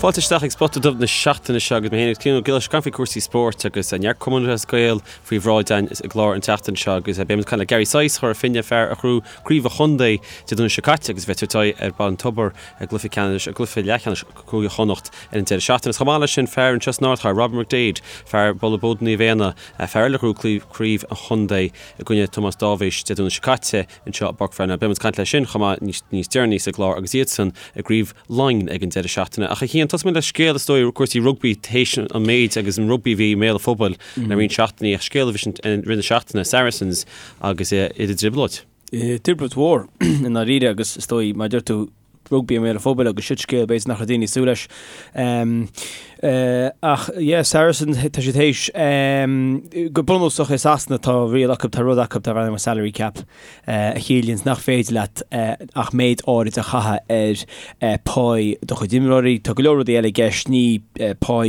Fáilte isteach ag Spota Dubh na seachtaine seo agus mé féin agus Cian Ó Giolláin ag caint faoi cúrsaí spóirt agus neart Cumann Lúthchleas Gael faoi bhráid againn i gclár an tseachtain seo agus beidh muid ag caint le Gary Sice Chora Finne, fear a ghnóthaigh Craobh an Chontae Dé Domhnaigh seo caite agus a bheidh ag tabhairt aghaidh ar Bhaile an Tobair i gcluiche ceannais, i gcluiche leathcheannais Cúige Chonnacht ar an deireadh seachtaine. Agus chomh maith leis sin fear anseo san ardchathair, Robbie McDaid, fear Bhaile Bóda Naomh Éanna, fear eile a ghnóthaigh Craobh an Chontae i gcoinne Tomás Dáibhís Dé Domhnaigh seo caite. anseo i bPáirc Pharnell. Beidh muid ag caint leis sin chomh maith níos deireanaí sa gclár agus iadsan i gCraobh Laighean ag an deireadh seachtaine. Ach a Chian, tosóidh muid le scéal is dóigh cúrsaí rugbaí théis an méid agus an rugbaí a bhí i mbéal an phobail le roinnt seachtainí ach scéal a bhí i rith na seachtaine, Saracens agus iad i dtrioblóid. Trioblóid mhór i ndáiríre agus is dóigh mar a deir tú rugbaí i mbéal an phobail agus siod scéal b'fhéidir nach raibh daoine ag súil leis. Ach yeah, Saracens, tá siad théis, go bunúsach i Sasana tá riail acu, tá rud acu darb ainm salary cap a chiallaíonns nach féidir leat ach méid áirid a chaitheamh ar pá do chuid imreoirí. Tá go leor rudaí eile i gceist, ní pá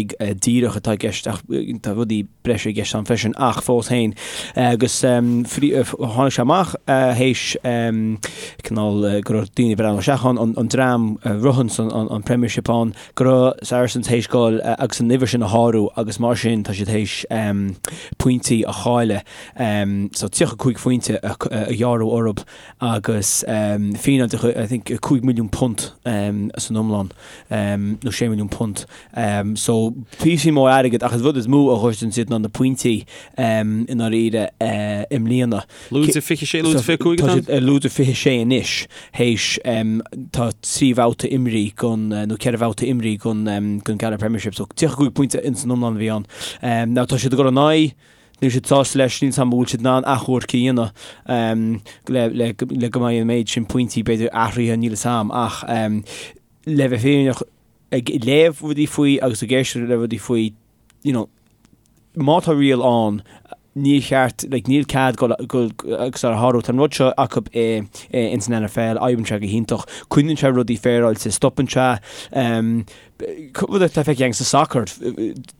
díreach atá i gceist ach tá rudaí breise i gceist ann freisin ach fós féin agus tháinig sé amach théis cineál go raibh daoine ag breathnú isteach ann, an dream a ritheanns an Premiership ann, go raibh Saracens théis goil agus an uimhir sin a shárú agus mar sin tá siad théis pointí a chailleadh so 35 phointe a ghearradh orthu agus fíneáil de I think £5 milliún san iomlán nó £6 milliún. So, píosa mór airgid ach an rud is mó a ghoideann siad ná na pointí i ndáiríre i mbliana. Lúide 26, lúide 25 atá ann? Tá siad lúide 26 anois théis tá 3 bhabhta imrithe gon nó 4 bhabhta imrithe gon gon Gaelic Premiership so 35 pointe ins an iomlán a bhí ann. Now tá siad ag dul in aghaidh níl siad sásta leis, níl 's a'm an bhfuil siad in ann achomharc a dhéanamh le le le go mbeidh an méid sin pointí b'fhéidir athraithe níl 'fhios a'm ach le bheith fírinneach ag léamh rudaí faoi agus ag éisteacht le rudaí faoi, you know, má tá riail ann, níor cheart, like, níl cead dul, dul agus é a shárú. Tá an rud seo acu i, i, ins an NFL, oibríonn sé go hiontach, coinníonn sé rudaí féaráilte, stopann sé, um, rud atá feicthe againn sa sacar,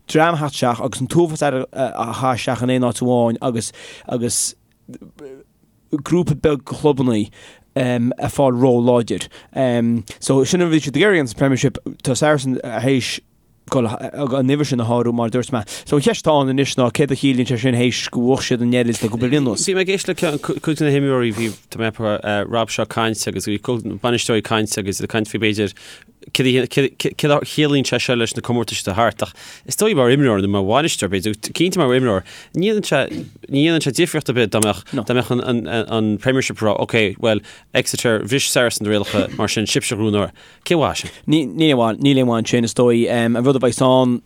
dream a theacht isteach agus an t-uafás airgid a chaitheamh isteach in aon áit amháin agus, agus, grúpa beag clubannaí ag fáil ró-láidir. So sin an rud a bhí siad ag iarraidh sa Premiership, tá Saracens théis dul an uimhir sin a shárú mar a dúirt mé. So an cheist atá ann anois ná céard a chiallaíonn sé sin théis go bhuaigh siad an oiread le cúpla bliain anuas. Bhí mé ag éisteacht le cuid de na himreoirí, bhí tá mé ag Rob Shaw ag caint agus bhí bainisteoirí ag caint agus ag caint faoi b'fhéidir céard a chiallaíonn sé seo leis na comórtais atá thart ach is dóigh mar imreoir nó mar bhainisteoir b'fhéidir, cinnte mar imreoir, ní dhéanann sé, ní dhéanann sé difríocht ar bith dá mbeadh, dá mbeadh an, an, an Premiership ag rá ok, well, Exeter, bhris Saracens na rialacha mar sin sibhse a ghnóthóidh. Cén mhaith sin? Ní, níl aon mhaith, níl aon mhaith ansin is dóigh. An rud a bheidh ann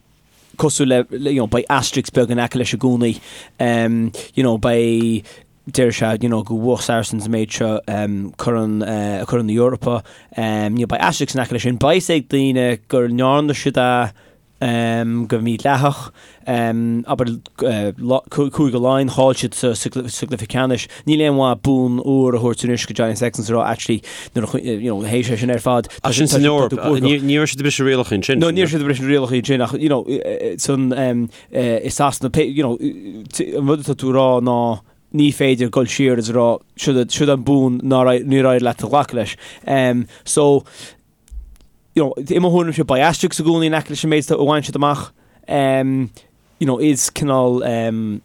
cosúil le, you know, beidh asterisk beag in aice leis i gcónaí. You know, beidh, deir sé you know go bhuaigh Saracens an méid seo Corn Corn na hEorpa you know beidh asterisk in aice leis sin. Beidh fhios ag daoine go ndearna siad é go mídhleathach abair Cúige Laighean chaill siad sa sa gcluiche ceannais. Níl aon mhaith bonn óir a thabhairt anois go Johnny Sexton is a rá actually nuair a you know théis é sin ar fad Ach sin san Eoraip ní raibh siad ag briseadh rialacha ansin. No ní raibh siad ag briseadh rialacha ansin ach you know san i Sasana, you know, an rud atá tú a rá ná ní féidir dul siar is a rá siod an bonn nár níor éirigh leat a ghlacadh leis. Um, so, you know, i mo thuairimse beidh asterisk i gcónaí in aice leis an méid a bhain siad amach. Um, you know, is cineál um,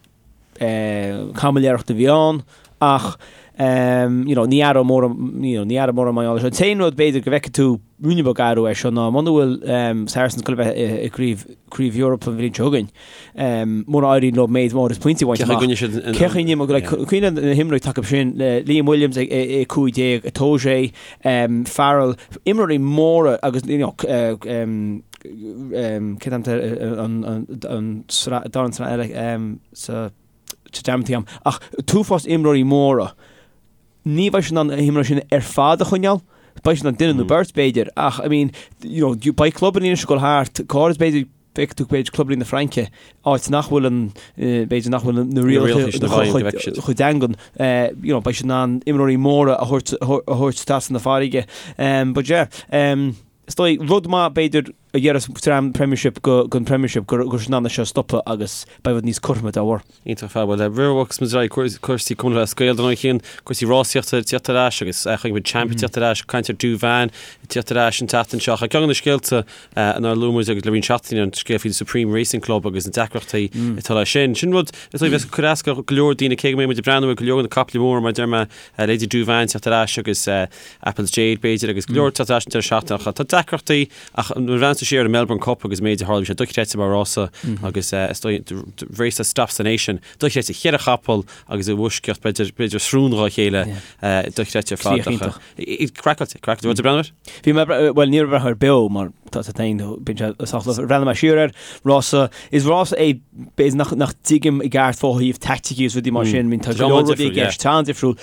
uh, caimiléireacht a bhí ann ach um, you know, ní athrú mór you know, ní athrú mór mar gheall air seo. An t-aon rud b'fhéidir go bhfeicfidh tú ruainne beag athrú air seo ná muna bhfuil um, Saracens ag dul a bheith i, i gcraobh craobh Eorpa an bhliain seo chugainn, um, muna éiríonn leo méid mór is pointí a bhaint Cé amach. chaoi siad in- Cé chaoi n- like, cuimhnigh na himreoirí atá acu sin le Liam Williams ag ag 15, Itoje, um, Farrell, imreoirí móra agus you know, uh, um, um, cén t-ainm an an an sraith dara an sraith eile um, sa sa dearmadtaí agam. Ach t-uafás imreoirí móra. Ní bheidh siad in ann na himreoirí sin ar fad a choinneáil. Beidh siad in ann duine nó beirt, b'fhéidir, ach, I mean, you know, beidh clubanna anois ag dul thart, go háirid b'fhéidir, feicfidh tú b'fhéidir clubanna na Fraince, áit nach bhfuil an, b'fhéidir nach bhfuil na rialacha chomh daingean, you know, beidh siad in ann imreoirí móra a thabhairt, a thabhairt trasna na farraige. But yeah, is dóigh, rud maith b'fhéidir. a ghearras dream Premiership go an Premiership go raibh siad in ann é seo a stopadh agus beidh rud níos cothroime dá bharr. Iontach ar fad. Bhuel, roimh a bhogfas muid ar aghaidh, cúrsaí Cumann Lúthchleas Gael dar ndóigh Cian, cúrsaí rásaíochta ag tíocht ar ais agus chonaic muid Champ ag tíocht ar ais, caint ar Douvan ag tíocht ar ais an tseachtain seo. Ach ceann de na scéalta nár luaigh muid agus le roinnt seachtainí an scéal faoi Supreme Racing Club agus na deacrachtaí atá leis sin. Sin rud is dóigh a bheas ag cur as go leor daoine cé go mbeidh muid ag breathnú ar go leor de na caiple móra mar a deir mé, Lady Douvan teacht ar ais agus Apple's Jade b'fhéidir agus go leor teacht ar ais an deireadh seachtaine ach tá deacrachtaí ach nuair a bhreathnaíonn tú siar ar an Melbourne Cup agus an méid a tharla bhí sé dochreidte mar rása agus is dóigh the race that stops the nation dochreidte cheithre chapall agus i bhfoisceacht b'fhéidir b'fhéidir srón dhá chéile dochreidte ar fad ach craiceáilte craiceáilte raibh tú ag breathnú air? Bhí mé bhuel ní raibh mé ag breathnú air beo mar tá sé féin bíonn sé sách luath bhreathnaigh mé siar air rása is rása é b'fhéidir nach nach dtuigim i gceart fá thaobh taicticí is rudaí mar sin bíonn tá go leor rudaí i gceist tá an-difriúil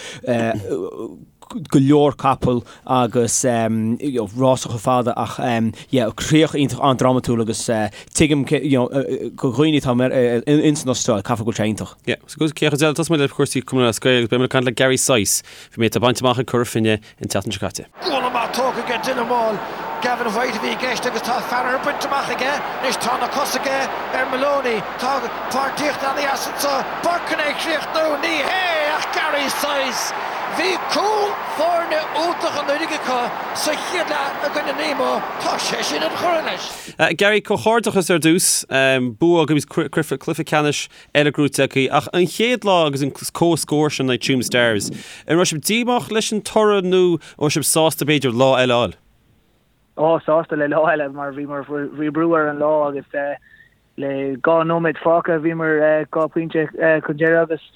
go leor capall agus you know, rása chomh fada ach yeah, críoch iontach an-drámatúil agus tuigim you know, do dhaoine atá ins an Astráil caithfidh go bhfuil sé iontach. Yeah, so go céacha deile tosóidh muid le cúrsaí Cumann Lúthchleas Gael agus beidh muid ag caint le Gary Sice faoin méid atá bainte amach ag Cora Finne an tseachtain seo caite. Gualainn maith tógtha aige Dylan Wall. Gavin White a bhí i gceist agus tá Farragher bainte amach aige. Anois tá na cosa aige ar Moloney. Tá páirtíocht ana-dheas anseo. Burke chun é a chríochnú. Ní hé ach Gary Sice. Bhí cúl foirne iontach anuraidh acu sa chéad leath i gcoinne Nemo. Tá sé sin an-churtha leis. Gary, comhghairdeachas ar dtús. Bua agus cluiche ceannais eile gnóite agaibh. Ach an chéad lá agus an comhscór sin in aghaidh Tuam Stars, an raibh sibh díomách leis an toradh nó an raibh sibh sásta b'fhéidir lá eile a fháil? Ó, sásta le lá eile mar bhíomar, bhí brú ar an lá agus le 2 nóiméad fágtha bhíomar 2 pointe chun deireadh agus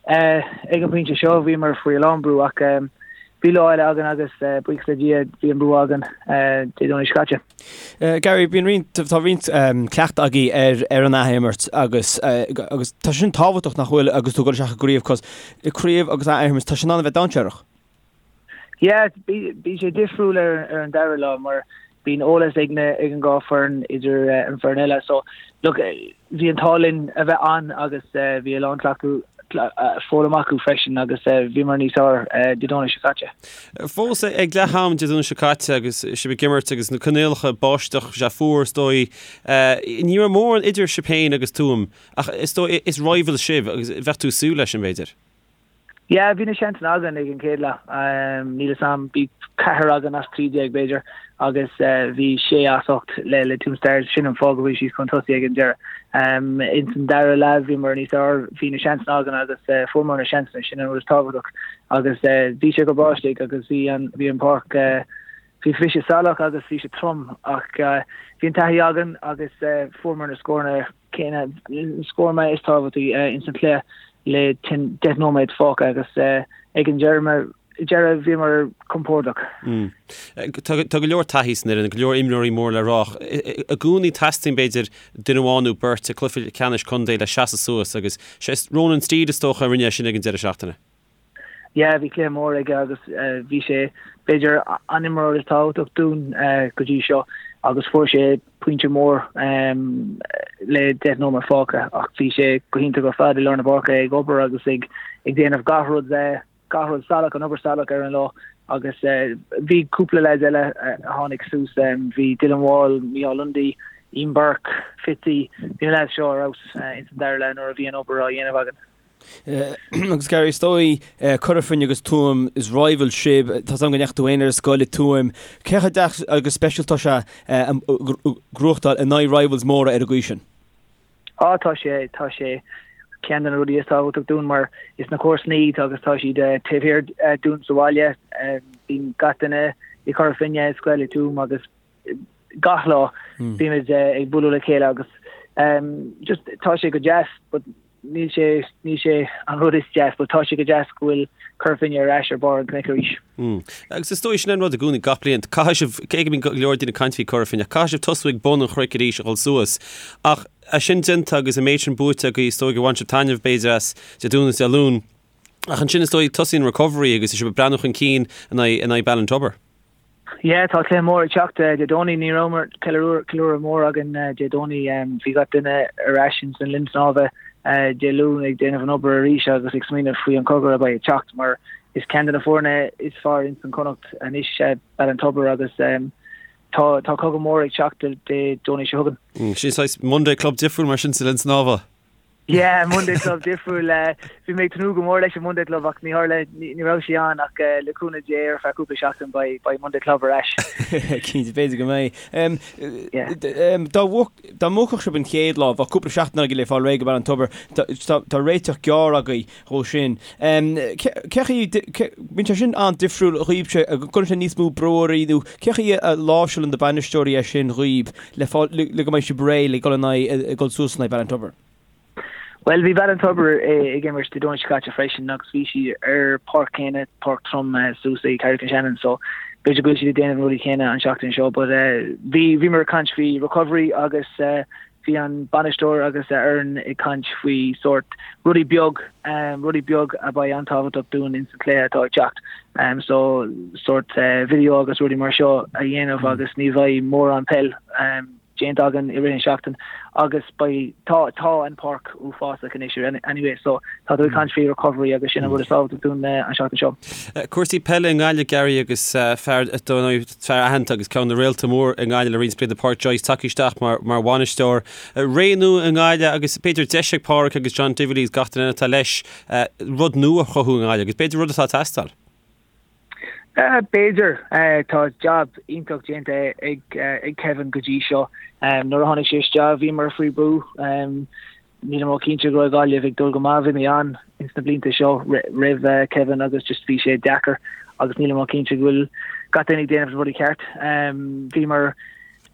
Ag an bpointe seo bhíomar faoi a lán brú ach bhí lá eile againn agus buíochas le Dia bhí an bua againn Dé Domhnaigh seo caite. Gary, bíonn roinnt, tá roinnt cleachtadh agaibh ar ar an athimirt agus agus tá sin tábhachtach nach bhfuil agus tú ag dul isteach i gcraobh cos craobh agus athimirt tá sin in ann a bheith dainséarach. Yeah, bíonn sé difriúil ar ar an dara lá mar bíonn eolas ag na ag an dhá foireann idir an foireann eile so look bhí an t-ádh linn a bheith ann agus bhí a lán cleachtadh foghlaim acu freisin agus bhíomar níos fearr Dé Domhnaigh seo caite. Fós ag leath am Dé Domhnaigh seo caite agus sibh ag imirt agus na coinníollacha báisteach sé fuar is dóigh ní raibh mórán idir sibh féin agus Tuaim ach is dóigh is rivals sibh agus bheadh tú ag súil leis sin b'fhéidir. Yeah, bhí na seansanna againn ag an chéad leath. Níl fhios a'm, bhí ceathair againn as 13 b'fhéidir agus bhí sé as 8 le le Tuam Stars, sin an fáth go bhfuil siad chun tosaigh ag an deireadh. Ins an dara leath bhíomar níos fearr, bhí na seansanna againn agus fuaireamar na seansanna, sin an rud is tábhachtach. Agus bhí sé go breá istigh agus bhí an bhí an páirc bhí bhí sé salach agus bhí sé trom ach bhí an taithí againn agus fuaireamar na scóranna céanna, scóranna is tábhachtaí ins an chluiche le 10 nóiméad fágtha agus ag an deireadh bhíomar compordach. Tá go leor taithí san fhoireann, go leor imreoirí mór le rá ach i gcónaí teastaíonn b'fhéidir duine amháin nó beirt i gcluiche ceannais contae le seasamh suas agus sé Ronan Steede is dócha a rinne é sin ag an deireadh seachtaine. Yeah, bhí cluiche mór aige agus bhí sé b'fhéidir an imreoir is tábhachtach dúinn go dtí seo agus fuair sé pointe mór le 10 nóiméad fágtha ach bhí sé go hiontach ar fad i lár na páirce ag obair agus ag ag déanamh gach rud gach rud salach an obair salach ar an lá agus bhí cúpla leaids eile a tháinig suas bhí Dylan Wall, Micheál Lundy, Ian Burke, Fitzy, bhí na leaids seo ar fheabhas ins an dara leath nuair a bhí an obair á dhéanamh againn. Agus Gary, is dóigh, Cora Finne agus Tuaim, is rivals sibh, tá 's agam go ndeachaigh tú féin ar scoil i Tuaim. Cé chomh deas agus speisialta atá sé gnóthachtáil in aghaidh rivals móra ar an gcaoi sin? Á, tá sé, tá sé ceann de na rudaí is tábhachtach dúinn mar is na comharsana iad agus tá siad taobh thiar dúinn sa bhaile. Bíonn gach duine i Cora Finne ar scoil i Tuaim agus gach lá bímid ag bualadh le chéile agus just tá sé go deas but níl sé níl sé an rud is deas but tá sé go deas go bhfuil Cora Finne ar ais ar barr an chnoic arís. Agus is dóigh sin an rud i gcónaí gach bliain caithfidh sibh cé go mbíonn go leor daoine ag caint faoi Cora Finne caithfidh sibh tosú ag bun an chnoic arís a dhul suas ach é sin déanta agus an méid sin buaite agaibh is dóigh gur bhain sibh taitneamh b'fhéidir as Dé Domhnaigh is Dé Luain ach ansin is dóigh tosaíonn recovery agus sibh ag breathnú chun cinn in aghaidh in aghaidh Ballintubber. Yeah, tá cluiche mór ag teacht Dé Domhnaigh. Ní rabhamar ceiliúradh mór againn Dé Domhnaigh. Bhí gach duine ar ais ins an linn snámha Dé Luain ag déanamh an obair arís agus ag smaoineamh faoi an cogar a bheidh ag teacht mar is ceann de na foirne is fearr ins an Connacht anois Ballintubber agus. Tá tá cogadh mór ag teacht Dé Domhnaigh seo chugainn. Sin saghas Monday Club difriúil mar sin sa Linn Snámha. Yeah, Monday Club difriúil. Bhí mé ag tnúth go mór leis an Monday Club ach ní tharla, ní raibh sé ann ach le cúnamh Dé ar feadh cúpla seachtain beidh beidh Monday Club ar ais. Cinnte, b'fhéidir go mbeidh. Dá dá mbuafadh sibh an chéad lá, bheadh cúpla seachtain agaibh le fáil réidh go Ballintubber. Tá réiteach gearr agaibh dhó sin. Cé chaoi, bíonn sé sin an-difriúil dhaoibhse, an gcuireann sé níos mó brú oraibh nó cé chaoi a láimhseálann na bainisteoirí é sin dhaoib le fáil, le go mbeidh sibh réidh le dul in aghaidh, dul suas in aghaidh Ballintubber? Bhuel, bhí Ballintubber ag imirt Dé Domhnaigh seo caite freisin agus bhí siad ar páirc céanna, páirc trom suas ag Carrick-on-Shannon so b'fhéidir go bhfuil siad ag déanamh na rudaí céanna an seachtain seo but bhí, bhíomar ag caint faoi recovery agus bhí an bainisteoir agus a fhoireann ag caint faoi sórt rudaí beag, rudaí beag a beidh an-tábhachtach dúinn ins an cluiche atá ag teacht. So sórt video agus rudaí mar seo a dhéanamh agus ní bheidh mórán peil déanta againn i rith an seachtain agus beidh, tá, tá an páirc uafásach anois anyway so tá tú ag caint faoi recovery agus sin an rud is tábhachtaí dúinn an seachtain seo. Cúrsaí peile i nGaillimh, Gary, agus fear, fear aitheanta agus ceann de na réalta mór i nGaillimh le roinnt blianta, Pádraic Joyce, tagtha isteach mar, mar bhainisteoir. Ré nua i nGaillimh agus b'fhéidir deis ag Pádraic agus John Divilly agus gach duine eile atá leis rud nua a chruthú i nGaillimh agus b'fhéidir rud atá ag teastáil. B'fhéidir. Tá jab iontach déanta ag Kevin go dtí seo. Nuair a tháinig sé isteach bhíomar faoi brú. Nílim ró-chinnte go raibh Gaillimh ag dul go maith. Bhí mé ann ins na blianta seo roimh Kevin agus just bhí sé deacair agus nílim ró-chinnte go bhfuil gach duine ag déanamh na rudaí ceart. Bhíomar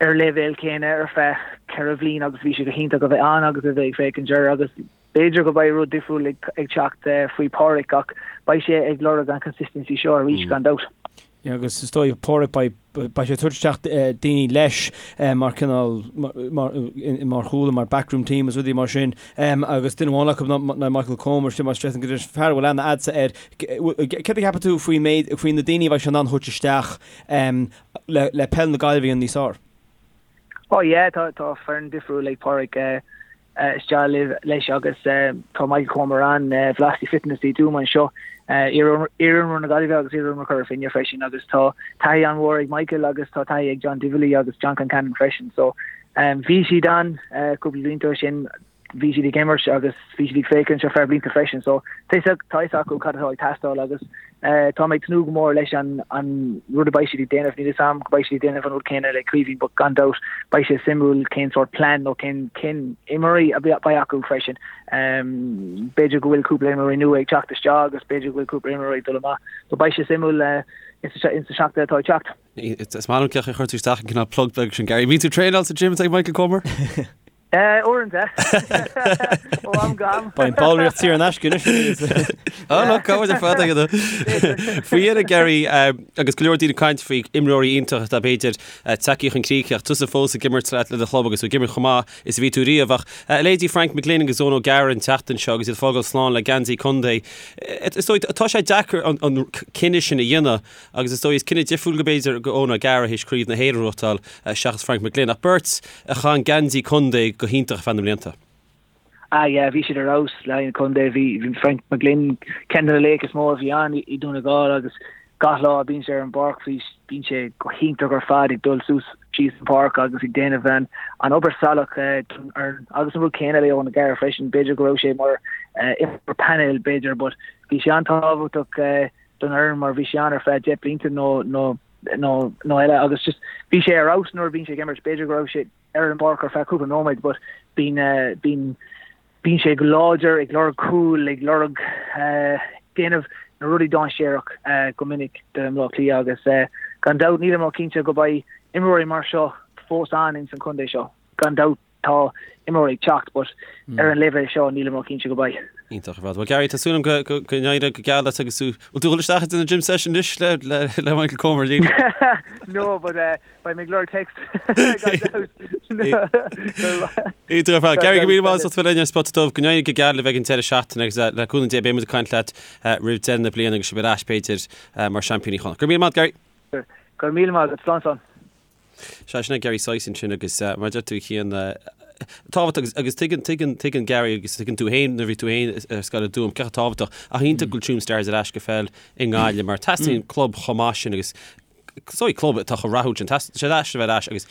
ar leibhéal céanna ar feadh 4 bhliain agus bhí sé go hiontach a bheith ann agus a bheith ag féachaint air agus B'fhéidir go beidh rud difriúil ag teacht faoi Pádraic ach beidh sé ag lorg an consistency seo arís gan dabht. Agus is dóigh Pádraic beidh beidh sé ag tabhairt isteach daoine leis mar cineál mar mar chúla mar backroom team is rudaí mar sin agus duine amháin acu ná Michael Comer sin mar stress go fear a bhfuil aithne a'dsa air. Céard a cheapann tú faoin méid faoi na daoine a bheidh sé in ann a thabhairt isteach le le peil na Gaillimhe a dhéanamh níos fearr? Oh yeah tá tá foireann difriúil ag Pádraic isteach leis agus tá Michael Comer ann, Velocity Fitness i dTuaim anseo, iar-imreoir na Gaillimhe agus iar-imreoir Chora Finne freisin agus tá taithí an-mhór ag Michael agus tá taithí ag John Divilly agus John Concannon freisin. So bhí siad ann cúpla blianta ó sin, bhí siad ag imirt agus bhí siad ag féachaint ar feadh blianta freisin. So tá a fhios acu cad atá ag teastáil agus Tá mé ag tnúth go mór leis an rud a beidh siad ag déanamh. Níl fhios a'm go beidh siad ag déanamh an rud céanna le Caoimhín but gan dabht beidh sé suimiúil cén sórt plean nó cén cén imreoirí a beidh acu freisin. B'fhéidir go bhfuil cúpla imreoirí nua ag teacht isteach agus b'fhéidir go bhfuil cúpla imreoirí ag dul amach. So beidh sé suimiúil insa seachtain atá ag teacht. Is maith liom cén chaoi a chuir tú isteach an cineál plug beag sin Gary. Bíonn tú ag traenáil sa gym ag Michael Comer? Uaireanta. Ó am go ham. Beidh an ballraíocht saor in aisce anois. Á no, cá bhfuil ar fad aige Faoi dheireadh Gary agus go leor daoine ag caint faoi imreoirí iontach atá b'fhéidir tagtha chun críche ach tusa fós ag imirt le do chlub agus tú ag imirt chomh maith is a bhí tú riamh ach leithéidí Frank McGlynn agus Eoin O'Gara an tseachtain seo agus iad ag fágáil slán le geansaí contae. Is dóigh tá sé deacair an cinneadh sin a dhéanamh Agus is dóigh is cinneadh difriúil go b'fhéidir go Eoin O'Gara théis Craobh na hÉireann a ghnóthachtáil seachas Frank McGlynn ach beirt a chaith an geansaí contae go hiontach ar feadh na mblianta. Ah yeah, bhí siad ar fheabhas le haghaidh an chontae. Bhí bhí Frank McGlynn ceann de na laochra is mó a bhí ann i Dún na nGall agus gach lá a bíonn sé ar an bpáirc bhí bíonn sé go hiontach ar fad ag dul suas síos an pháirc agus ag déanamh an an obair salach don fhoireann. Agus an rud céanna le Eoin O'Gara freisin, b'fhéidir go raibh sé mar imreoir painéil b'fhéidir but bhí sé an-tábhachtach don fhoireann mar bhí sé ann ar feadh 10 blianta nó nó nó nó eile agus just bhí sé ar fheabhas nuair a bhíonn sé ag imirt b'fhéidir go raibh sé ar an bpáirc ar feadh cúpla nóiméad but bíonn eh, bíonn bíonn sé go láidir ag lorg cúl ag lorg eh, déanamh na rudaí dainséarach eh, go minic do Bhaile Átha Cliath agus eh, gan dabht nílim ró-chinnte go beidh imreoirí mar seo fós ann ins an chontae seo gan dabht Tá imreoirí ag teacht but ar an leibhéal seo nílim ró-chinnte go mbeidh. Iontach ar fad. Bhuel Gary, tá súil agam go go n-éireoidh go geal leat agus tú bhfuil tú ag dul isteach ag déanamh gym session anois le le le Michael Comer níl? No but uh, beidh mé ag lorg text gan dabht. Iontach ar fad. Gary, go míle maith as ucht bheith linn ar Spota Dubh. Go n-éirí go geal libh ag an deireadh seachtaine agus uh, le cúnamh Dé beidh muid ag caint leat uh, roimh deireadh na bliana agus sibh ar ais b'fhéidir uh, mar seaimpíní Chonnacht. Go raibh míle maith Gary. Go raibh míle maith agat. Slán slán. Sea, sin é Gary Sice ansin agus mar a deir tú a Chian, tábhachtach agus, agus tuigeann, tuigeann, tuigeann Gary agus tuigeann tú féin nuair a bhí tú féin ar scoil i dTuaim, cé chomh tábhachtach ach iontach go bhfuil Tuam Stars ar ais go peil i nGaillimh mar teastaíonn club chomh maith sin agus. Is dóigh club atá chomh rathúil sin, tá sé deas a bheith ar ais agus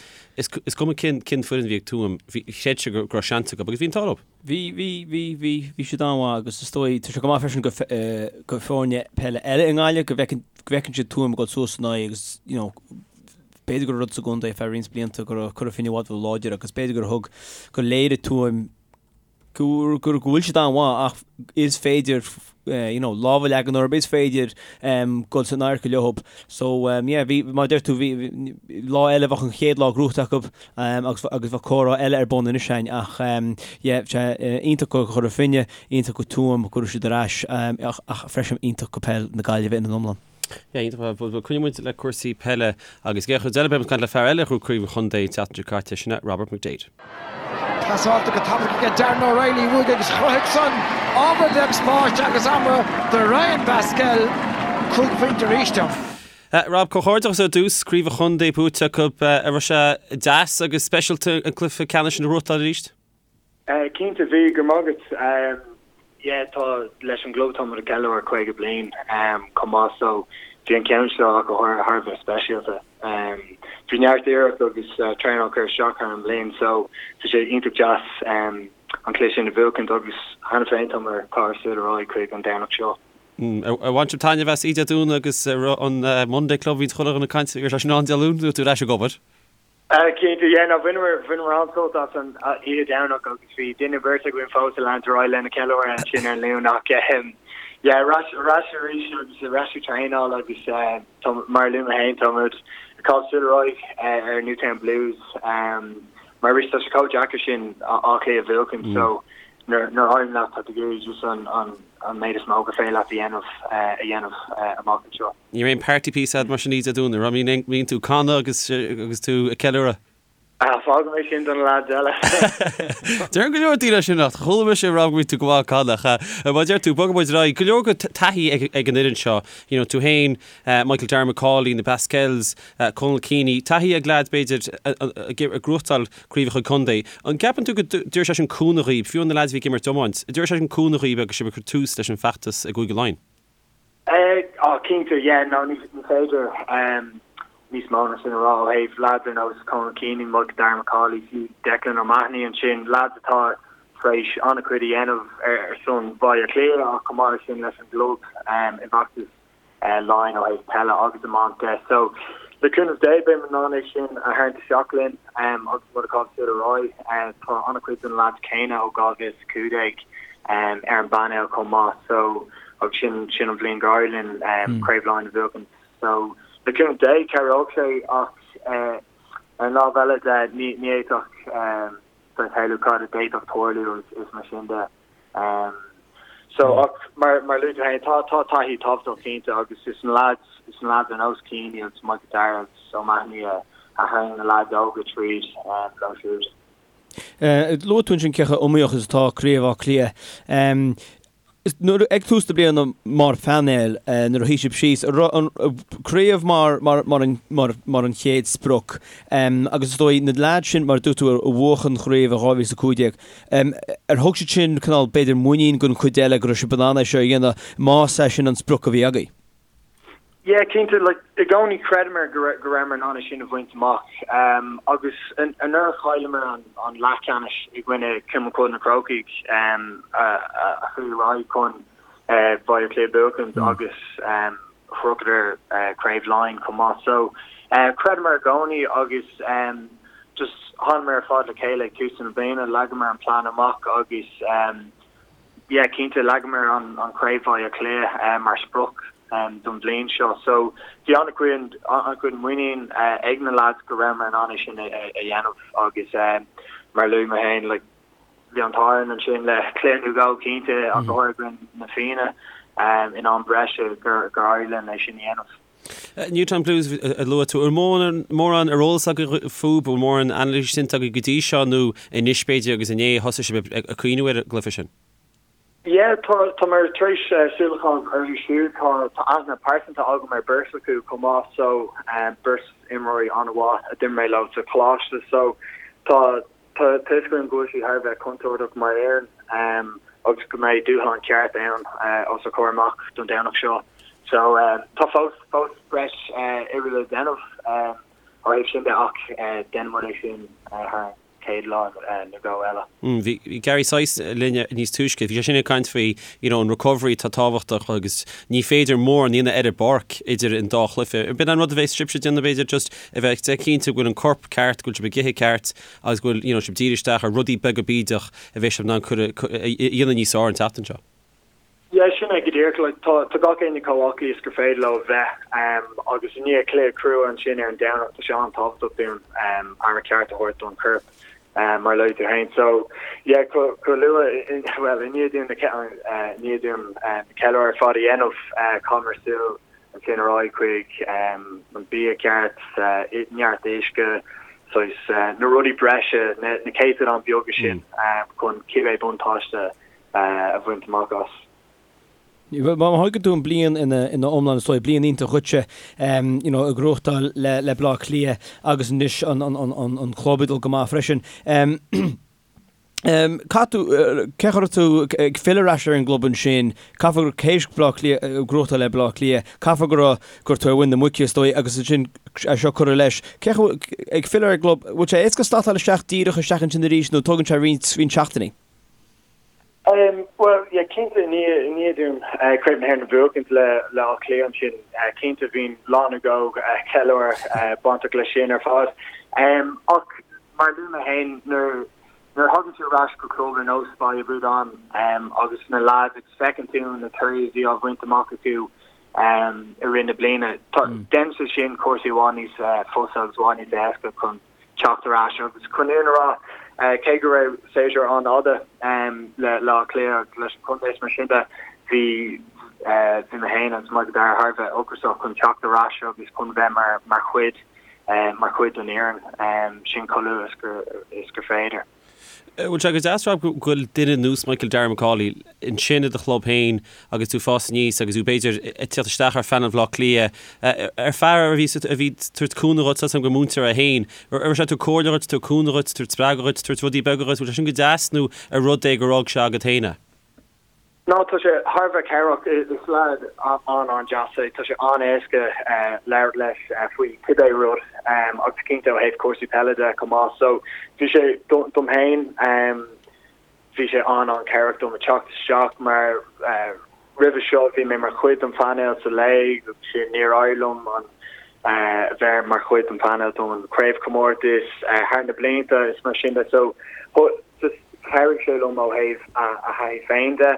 is cuma cén cén foireann a bhí ag Tuaim, bhí, chreid siad go raibh seans acu agus bhí an t-ádh leo. Bhí, bhí, bhí, bhí, bhí siad an-mhaith agus is dóigh, tá sé go maith freisin go go foirne peile eile i nGaillimh go bhfeiceann, go bhfeiceann siad Tuaim ag dul suas in aghaidh agus you know b'fhéidir go raibh rud sa gcontae ar feadh roinnt blianta go raibh Cora Finne i bhfad ró-láidir agus b'fhéidir gur thug, gur léirigh Tuaim go go bhfuil siad an-mhaith ach is féidir you know lámh a leagan orthu, is féidir dul san adharca leo. So yeah bhí mar a deir tú bhí lá eile bheadh an chéad lá gnóthaithe acu agus agus bheadh comhrá eile ar bun anois againn ach yeah sé iontach go Chora Finne, iontach go Tuaim go raibh siad ar ais ach ach freisin iontach go peil na Gaillimhe ina n-iomlán. Yeah, iontach. Bhuel, coinneoidh muid le cúrsaí peile agus an chéad chuid eile beidh muid ag caint le fear eile a ghnóthaigh Craobh an Chontae an tseachtain seo caite, sin é Robert McDaid. Pasáilte go tapaidh aige Darren O'Reilly uaidh agus chruthaigh san ábhar beag spáis agus ama do Ryan Basquel. 5 phointe arís ann. Rob, comhghairdeachas ar dtús, Craobh an Chontae buaite acu. An raibh sé deas agus speisialta an cluiche ceannais sin a ghnóthachtáil arís? Cinnte, bhí, go raibh maith agat. Yeah, tá, leis an gclub tá muid ag ceiliúradh 50 bliain chomh maith so bhí an ceann seo ach go háirithe thar a bheith speisialta. Bhí neart iarracht agus traenáil curtha isteach thar an mbliain so tá sé iontach deas an cluiche sin a bhuachaint agus cheana féin tá muid ag caitheamh súil ar aghaidh chuig an Domhnach seo. Ar bhain sibh taitneamh as Oíche Dé Domhnaigh agus an Monday Club a bhíonn chuile dhuine ag caint ar sin ann Dé Luain nó tú ar ais ag obair? Cinnte, yeah, no, bhaineamar, bhaineamar an-sult as an oíche Domhnach agus bhí duine beirt againn fós ag leanúint ar aghaidh lena ceiliúradh ansin ar an Luan ach ehm, yeah, ar ais, ar ais arís agus ar ais ag traenáil agus eh, tá, mar a luaigh mé féin, tá muid ag caitheamh súil ar aghaidh eh, ar Newtown Blues ehm, mar arís tá sé chomh deacair sin Áth Cliath a bhuachan so nuair, nuair a éiríonn leat tá tú ag iarraidh just an, an, an méid is mó gur féidir leat a dhéanamh eh, a dhéanamh eh, amach anseo. Ní raibh aon party piece agat mar sin Oíche Dé Domhnaigh, an raibh? Mbíonn tú ag canadh agus agus tú ag ceiliúradh? Ah, fágfaidh mé sin do na lads eile. Deireann go leor daoine sin ach chuala mise ag rá go mbíonn tú go maith ag canadh. Mar a deir tú, bogfaidh muid ar aghaidh. Go leor go taithí ag ag an fhoireann seo. You know, tú féin, Michael Darragh Macauley, na Basquels, Conal Keaney, taithí ag leaids b'fhéidir ag gnóthachtáil craobhacha contae. An gceapann tú go dtabharfaidh sé sin cúnamh dhaoib, fiú na leaids a bhí ag imirt iomáint, an dtabharfaidh sé sin cúnamh dhaoib agus sibh ag cur tús leis an bhfeachtas i gCúige Laighean? Ah, cinnte, yeah, no, ní féidir níos mó ná sin a rá ó thaobh leaids ar nós Conal Keaney, Michael Darragh Macauley, fiú Declan O'Mahony ansin, leaids atá tar éis an-chuid a dhéanamh ar son Bhaile Átha Cliath ach chomh maith leis sin leis an gclub i bhfeachtas Laighean ó thaobh peile agus iomáint de. So, le cúnamh Dé, beidh muid in ann é sin a tharraingt isteach linn agus muid ag caitheamh súil ar aghaidh. Tá an-chuid de na leaids céanna ó 2015 ar an bpainéal chomh maith so agus sin sin an bhliain gur éirigh linn Craobh Laighean a bhuachan. So le cúnamh Dé cabhróidh sé ach ar an lámh eile de ní ní fhéadfadh bheith shamhlú cad a d'fhéadfadh tarlú is is mar sin de. So ach mar mar luaigh tú féin tá tá taithí tábhachtach cinnte agus is na lads is na lads ar nós Keaney agus Michael Darragh agus O'Mahony a a tharraing na lads óga tríd leo siúd. Luaigh tú ansin cé chomh iomaíoch is atá Craobh Átha Cliath. Nuair, ag tús na bliana mar phainéal, nuair a shuigh sibh síos, an raibh an craobh mar, mar, mar an, mar, mar an chéad sprioc? Agus is dóigh, na leaids sin, mar a dúirt tú, a bhuaigh an chraobh i 2015, ar thug siad sin cineál, b'fhéidir, muinín don chuid eile go raibh sibh in ann é seo a dhéanamh, más é sin an sprioc a bhí agaibh? Yeah, cinnte, like, i gcónaí chreideamar go go rabhamar in ann é sin a bhaint amach. Um, agus anuraidh chailleamar an, an leathcheannais i gcoinne Cumann Cualann na Crócaigh um, a, a, a chuaigh ar aghaidh chun uh, Baile Átha Cliath a bhuachaint mm. agus um, shroicheadar uh, Craobh Laighean chomh maith. So, uh, chreideamar i gcónaí agus um, just thánamar ar fad le chéile ag tús na bliana, leagamar an plean amach agus um, Yeah, cinnte, leagamar an Craobh Bhaile Átha Cliath mar sprioc don bhliain seo. So, bhí an-chuid, an-chuid muinín ag na lads go rabhamar in ann é sin a dhéanamh agus mar a luaigh mé féin, like, bhí an t-ádh orainn ansin le cluiche nó dhó cinnte ach go háirithe i gcoinne na Fianna in am breise gur éirigh linn é sin a dhéanamh. Newtown Blues a luaigh tú. An bhfuil mórán ar eolas agaibh fúthu, bhfuil mórán anailís déanta agaibh go dtí seo nó anois b'fhéidir agus inné a thosaigh sibh ag cuimhniú ar an gcluiche sin? Yeah, tá, tá mé tar éis súil a chaitheamh orthu siúd. Tá, tá aithne pearsanta agam ar beirt acu chomh maith so beirt imreoirí an-mhaith a d'imir mé leo sa choláiste so tá, Tá a fhios agam go bhfuil siad thar a bheith contúirteach mar fhoireann agus go mbeidh dúshlán ceart ann os ár gcomhair amach don Domhnach seo. So tá fós fós breis oibre le déanamh ó thaobh sin de ach déanfaidh muid é sin thar an chéad lá nó dhó eile. Bhí Gary Sice linn níos túisce, bhí sé sin ag caint faoi you know an recovery atá tábhachtach agus ní féidir mórán a dhéanamh ar an bpáirc idir an dá chluiche. B'in an rud a bheas sibhse ag déanamh b'fhéidir just a bheith cinnte go bhfuil an corp ceart, go bhfuil sibh ag ithe ceart agus go bhfuil you know sibh dírithe isteach ar rudaí beaga bídeach a bheidh sibh in ann cur a dhéanamh níos fearr an tseachtain seo. Yeah, sin é go díreach. Like, tá, tá gach éinne chomh aclaí is gur féidir leo a bheith, agus i ndiaidh cluiche crua ansin ar an Domhnach, tá sé an-tábhachtach dúinn aire ceart a thabhairt don chorp, mar a luaigh tú féin. So, yeah, chomh, chomh luath, well, i ndiaidh dúinn na, i ndiaidh dúinn na ceiliúradh ar fad a dhéanamh, chaitheamar súil ansin ar aghaidh chuig an bia ceart, neart uisce, saghas, na rudaí breise, na, na céatadáin beaga sin chun cibé buntáiste a bhaint amach as. Má thógann tú an bliain ina iomlán is dóigh, bliain iontach dhuitse, you know, ag gnóthachtáil le le Bleá Cliath agus anois an an an club ag dul go maith freisin. Caithfidh tú, cén chaoi a raibh tú ag filleadh ar ais ar an gclub ansin, caithfidh gur théis Bleá Cliath, gnóthachtáil le Bleá Cliath, caithfidh go raibh, go raibh tú ar mhuin na muice is dóigh agus ansin é seo curtha leis. Cén chaoi, ag filleadh ar an gclub, bhfuil sé éasca slatáil isteach díreach isteach ansin arís nó tógann sé roinnt roinnt seachtainí? Bhuel, yeah, cinnte, i ndiaidh dúinn Craobh na hÉireann a bhuachaint le Áth Cliath ansin, cinnte bhí lá nó dhó ceiliúradh bainteach leis sin ar fad. Ach mar a luaigh mé féin, nuair nuair a thagann tú ar ais go club ar nós Baile Bhúdáin agus na lads agus feiceann tú na torthaí a bhí á bhaint amach acu i rith na bliana, déanann sé sin cúrsaí i bhfad níos fusa agus i bhfad níos éasca chun teacht ar ais agus chun an fhírinne a rá, cé go raibh séasúr an-fhada le Áth Cliath agus leis an chontae is mar sin de, bhí bhí mé féin agus Michael Darragh thar a bheith ocrasach chun teacht ar ais agus chun bheith mar mar chuid mar chuid den fhoireann sin chomh luath is gur is gur féidir. Bhfuil sé go deas, Rob, go bhfuil duine ar nós Michael Darragh Macauley ansin i do chlub féin agus tú ag fás aníos agus tú b'fhéidir ag teacht isteach ar phainéal Bhaile Átha Cliath, ar fear a bhí a bhí ag tabhairt cúnamh dhuit, tá a fhios agam gur múinteoir é féin, raibh sé ag tabhairt comhairle dhuit, tabhairt cúnamh dhuit, tabhairt spreagadh dhuit, tabhairt rudaí beaga dhuit, bhfuil sé sin go deas nó ar rud é gur fhág sé agat féin é? No, tá sé thar a bheith cabhrach. Is leaid an-an-deas é. Tá sé an-éasca labhairt leis faoi cibé rud agus cinnte ó thaobh cúrsaí peile de chomh maith. So bhí sé, dom féin, bhí sé an-an-chabhrach dom a teacht isteach mar roimhe seo bhí mé mar chuid den phainéal sa léig agus sin níor éirigh liom an bheith mar chuid den phainéal don chraobhchomórtas thar na blianta is mar sin de. So Just chabhraigh sé liom ó thaobh a thaithí féin de,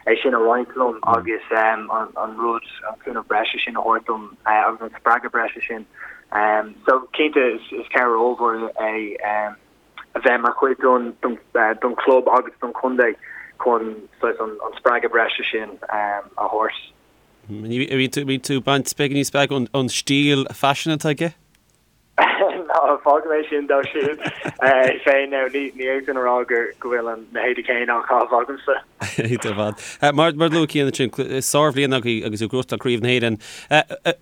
é sin a roinnt liom agus an rud, an cúnamh breise sin a thabhairt dom agus an spreagadh breise sin. So cinnte is cabhair ollmhór é a bheith mar chuid don chlub agus don chontae chun saghas an spreagadh breise sin a thabhairt. Bhí tú ag baint beagáinín spreagadh ón stíl faisin atá aige? Ná fágfaidh mé sin dó siúd féin now. Ní fhéadfainn a rá go bhfuil na héadaí céanna á chaitheamh agamsa. Iontach ar fad. Mar a luaigh Cian ansin, sárbhliain agaibh agus tú ag gnóthachtáil Craobh na hÉireann.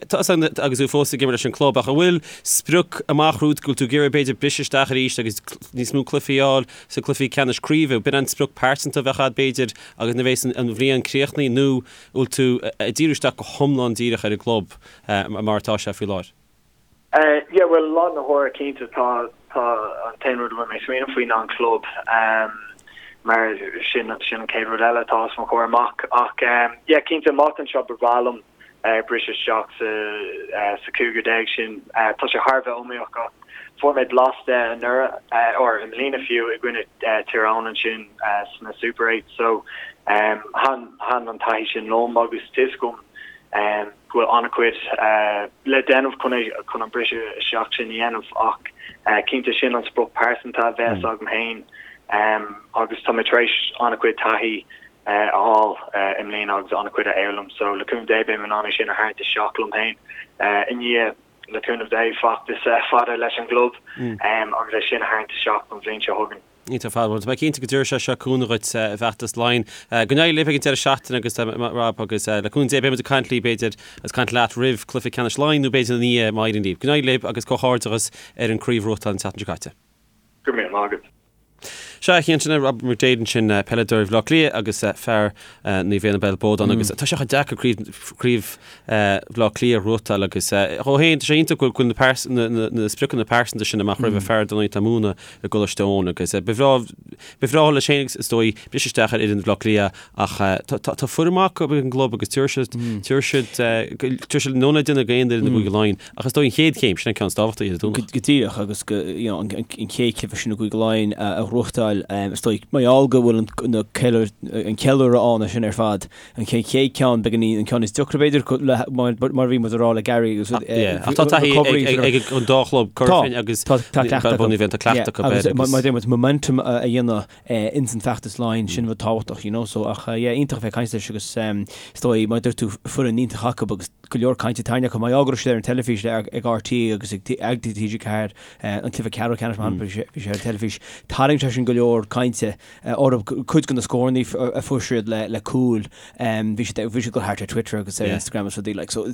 Tá a fhios agam agus tú fós ag imirt leis an gclub ach an bhfuil sprioc amach romhat go bhfuil tú ag iarraidh b'fhéidir briseadh isteach arís agus níos mó cluichí a fháil sa cluichí ceannais craoibhe? B'in an sprioc pearsanta a bheadh agat b'fhéidir agus nuair a bheas an bhliain críochnaithe nó an bhfuil tú ag díriú isteach go hiomlán díreach ar an gclub mar atá sé faoi láthair? Yeah, bhuel, lá na huaire cinnte tá tá an t-aon rud a bhfuil mé ag smaoineamh faoi ná an club mar sin sin an chéad rud eile atá os mo chomhair amach ach yeah cinnte amach anseo ba bhreá liom briseadh isteach sa sa chúigear déag sin. Tá sé thar a bheith iomaíoch ach fuair mé blas de anuraidh or i mbliana fiú i gcoinne Tír Eoghain ansin sna Super 8 so thaitin thaitin an taithí sin liom agus tá a fhios agam go bhfuil an-chuid le déanamh chun é chun an briseadh isteach sin a dhéanamh ach cinnte sin an sprioc pearsanta a bheas agam féin agus tá mé tar éis an-chuid taithí a fháil i mbliana agus an-chuid a fhoghlaim so le cúnamh Dé beidh mé in ann é sin a tharraingt isteach liom féin i ndiaidh le cúnamh Dé feachtas fada leis an gclub agus é sin a tharraingt isteach don bhliain seo chugainn. Iontach ar fad. Bhuel, tá mé cinnte go dtabharfaidh sé seo cúnamh dhuit i bhfeachtas Laighean. Go n-éirí libh ag an deireadh seachtaine agus Rob agus le cúnamh Dé beidh muid ag caint libh b'fhéidir agus caint leat roimh cluiche ceannais Laighean nó b'fhéidir ina dhiaidh má éiríonn libh. Go n-éirí libh agus comhghairdeachas ar an craobh a bhuachtáil an tseachtain seo caite. Go raibh míle maith agat. Sea, a Chiain, sin é Robert McDaid ansin, peileadóir Bhaile Átha Cliath agus fear Naomh Éanna Béal Bodhán agus tá sé chomh deacair craobh Bhaile Átha Cliath a ghnóthachtáil agus dhó féin, tá sé iontach go bhfuil na na spriocanna pearsanta sin amach roimhe fear dar ndóigh atá ag múineadh i gColáiste Eoin agus ba bhreá ba bhreá leis féin is dóigh briseadh isteach ar fhoireann Bhaile Átha Cliath ach tá foireann maith acu ag an gclub agus tabharfaidh siad tabharfaidh siad tabharfaidh siad an ionad ag aon fhoireann i gCúige Laighean. Ach is dóigh an chéad chéim, sin an ceann is tábhachtaí, Dé Domhnaigh. Go díreach, agus go, you know, an chéad chluiche sin i gCúige Laighean a ghnóthachtáil, is dóigh, mar gheall go bhfuil an, an ceiliúradh ann sin ar fad, an chéad ceann, beagáinín, an ceann is deacra b'fhéidir, mar a bhí muid a rá le Gary agus, Ach tá taithí ag an dá chlub, Cora Finne agus Tá Bun Éibheann, tá cleachtadh acu air. Agus mar a deir muid, momentum a dhéanamh ins an feachtas Laighean, sin rud tábhachtach, you know, so ach yeah, iontach a bheith ag caint leis agus is dóigh, mar a dúirt tú, foireann iontach acu agus go leor cainte tarraingthe acu, mar gheall go raibh siad ar an teilifís le ag RTÉ agus ag TG4, an cluiche ceathrú ceannais mar shampla, bhí sé ar an teilifís, tharraing sé sin go leor cainte orthu, cuid de na scóranna a fuair siad le cúil, bhí siad bhí siad ag dul thart ar Twitter agus ar Instagram agus rudaí like, so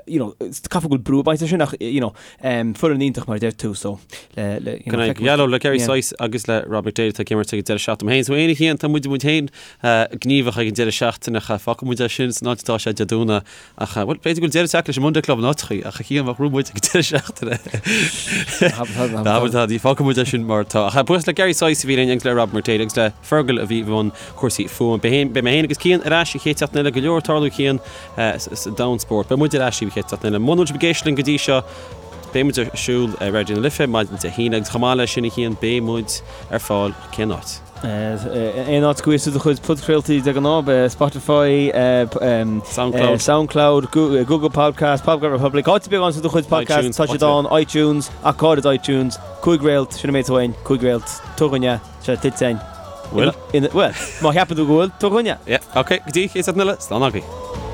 you know, caithfidh go bhfuil brú ag baint leis sin ach you know, foireann iontach mar a deir tú so le le you know, feicfidh muid. Le Gary Sice agus le Rob McDaid atá ag imirt ag an deireadh seachtaine. Féin, so aon a Chiain, tá muid muid féin gníomhach ag an deireadh seachtaine ach fágfaidh muid é sin san áit atá sé Dé Domhnaigh ach bhuel b'fhéidir go bhfuil deireadh tagtha leis an Monday Club in áiteachaí ach a Chiain bheadh rún muid ag an deireadh seachtaine. Fágfaidh muid é sin mar atá. Ach buíochas le Gary Sice a bhí linn agus le Rob McDaid agus le Fergal a bhí i mbun cúrsaí fuaime. Beidh mé féin agus Cian ar ais an chéad tseachtain eile, go leor ag tarlú Cian sa domhan spóirt. Beidh muid ar ais an chéad tseachtain eile. Muna bhfuil sibh ag éisteacht linn go dtí seo, beidh muid ar siúl ar Raidió na Life maidin Dé hAoine agus chomh maith leis sin a Chian, beidh muid ar fáil cén áit? Aon áit go bhfuil do chuid podchraoltaí de ghnáth, Spotify, Soundcloud, Soundcloud, Google Podcast, Podcast Republic, áit ar bith a bhfaigheann tú do chuid podcast, tá siad ann, iTunes, ach go háirid iTunes, 5 réalt, sin an méid atá uainn, 5 réalt, tabhair dhúinn é. Tá sé tuillte againn. Bhfuil? Bhuel, má cheapann tú go bhfuil, tabhair dhúinn é. Yeah, ok, go dtí an chéad seachtain eile, slán agaibh.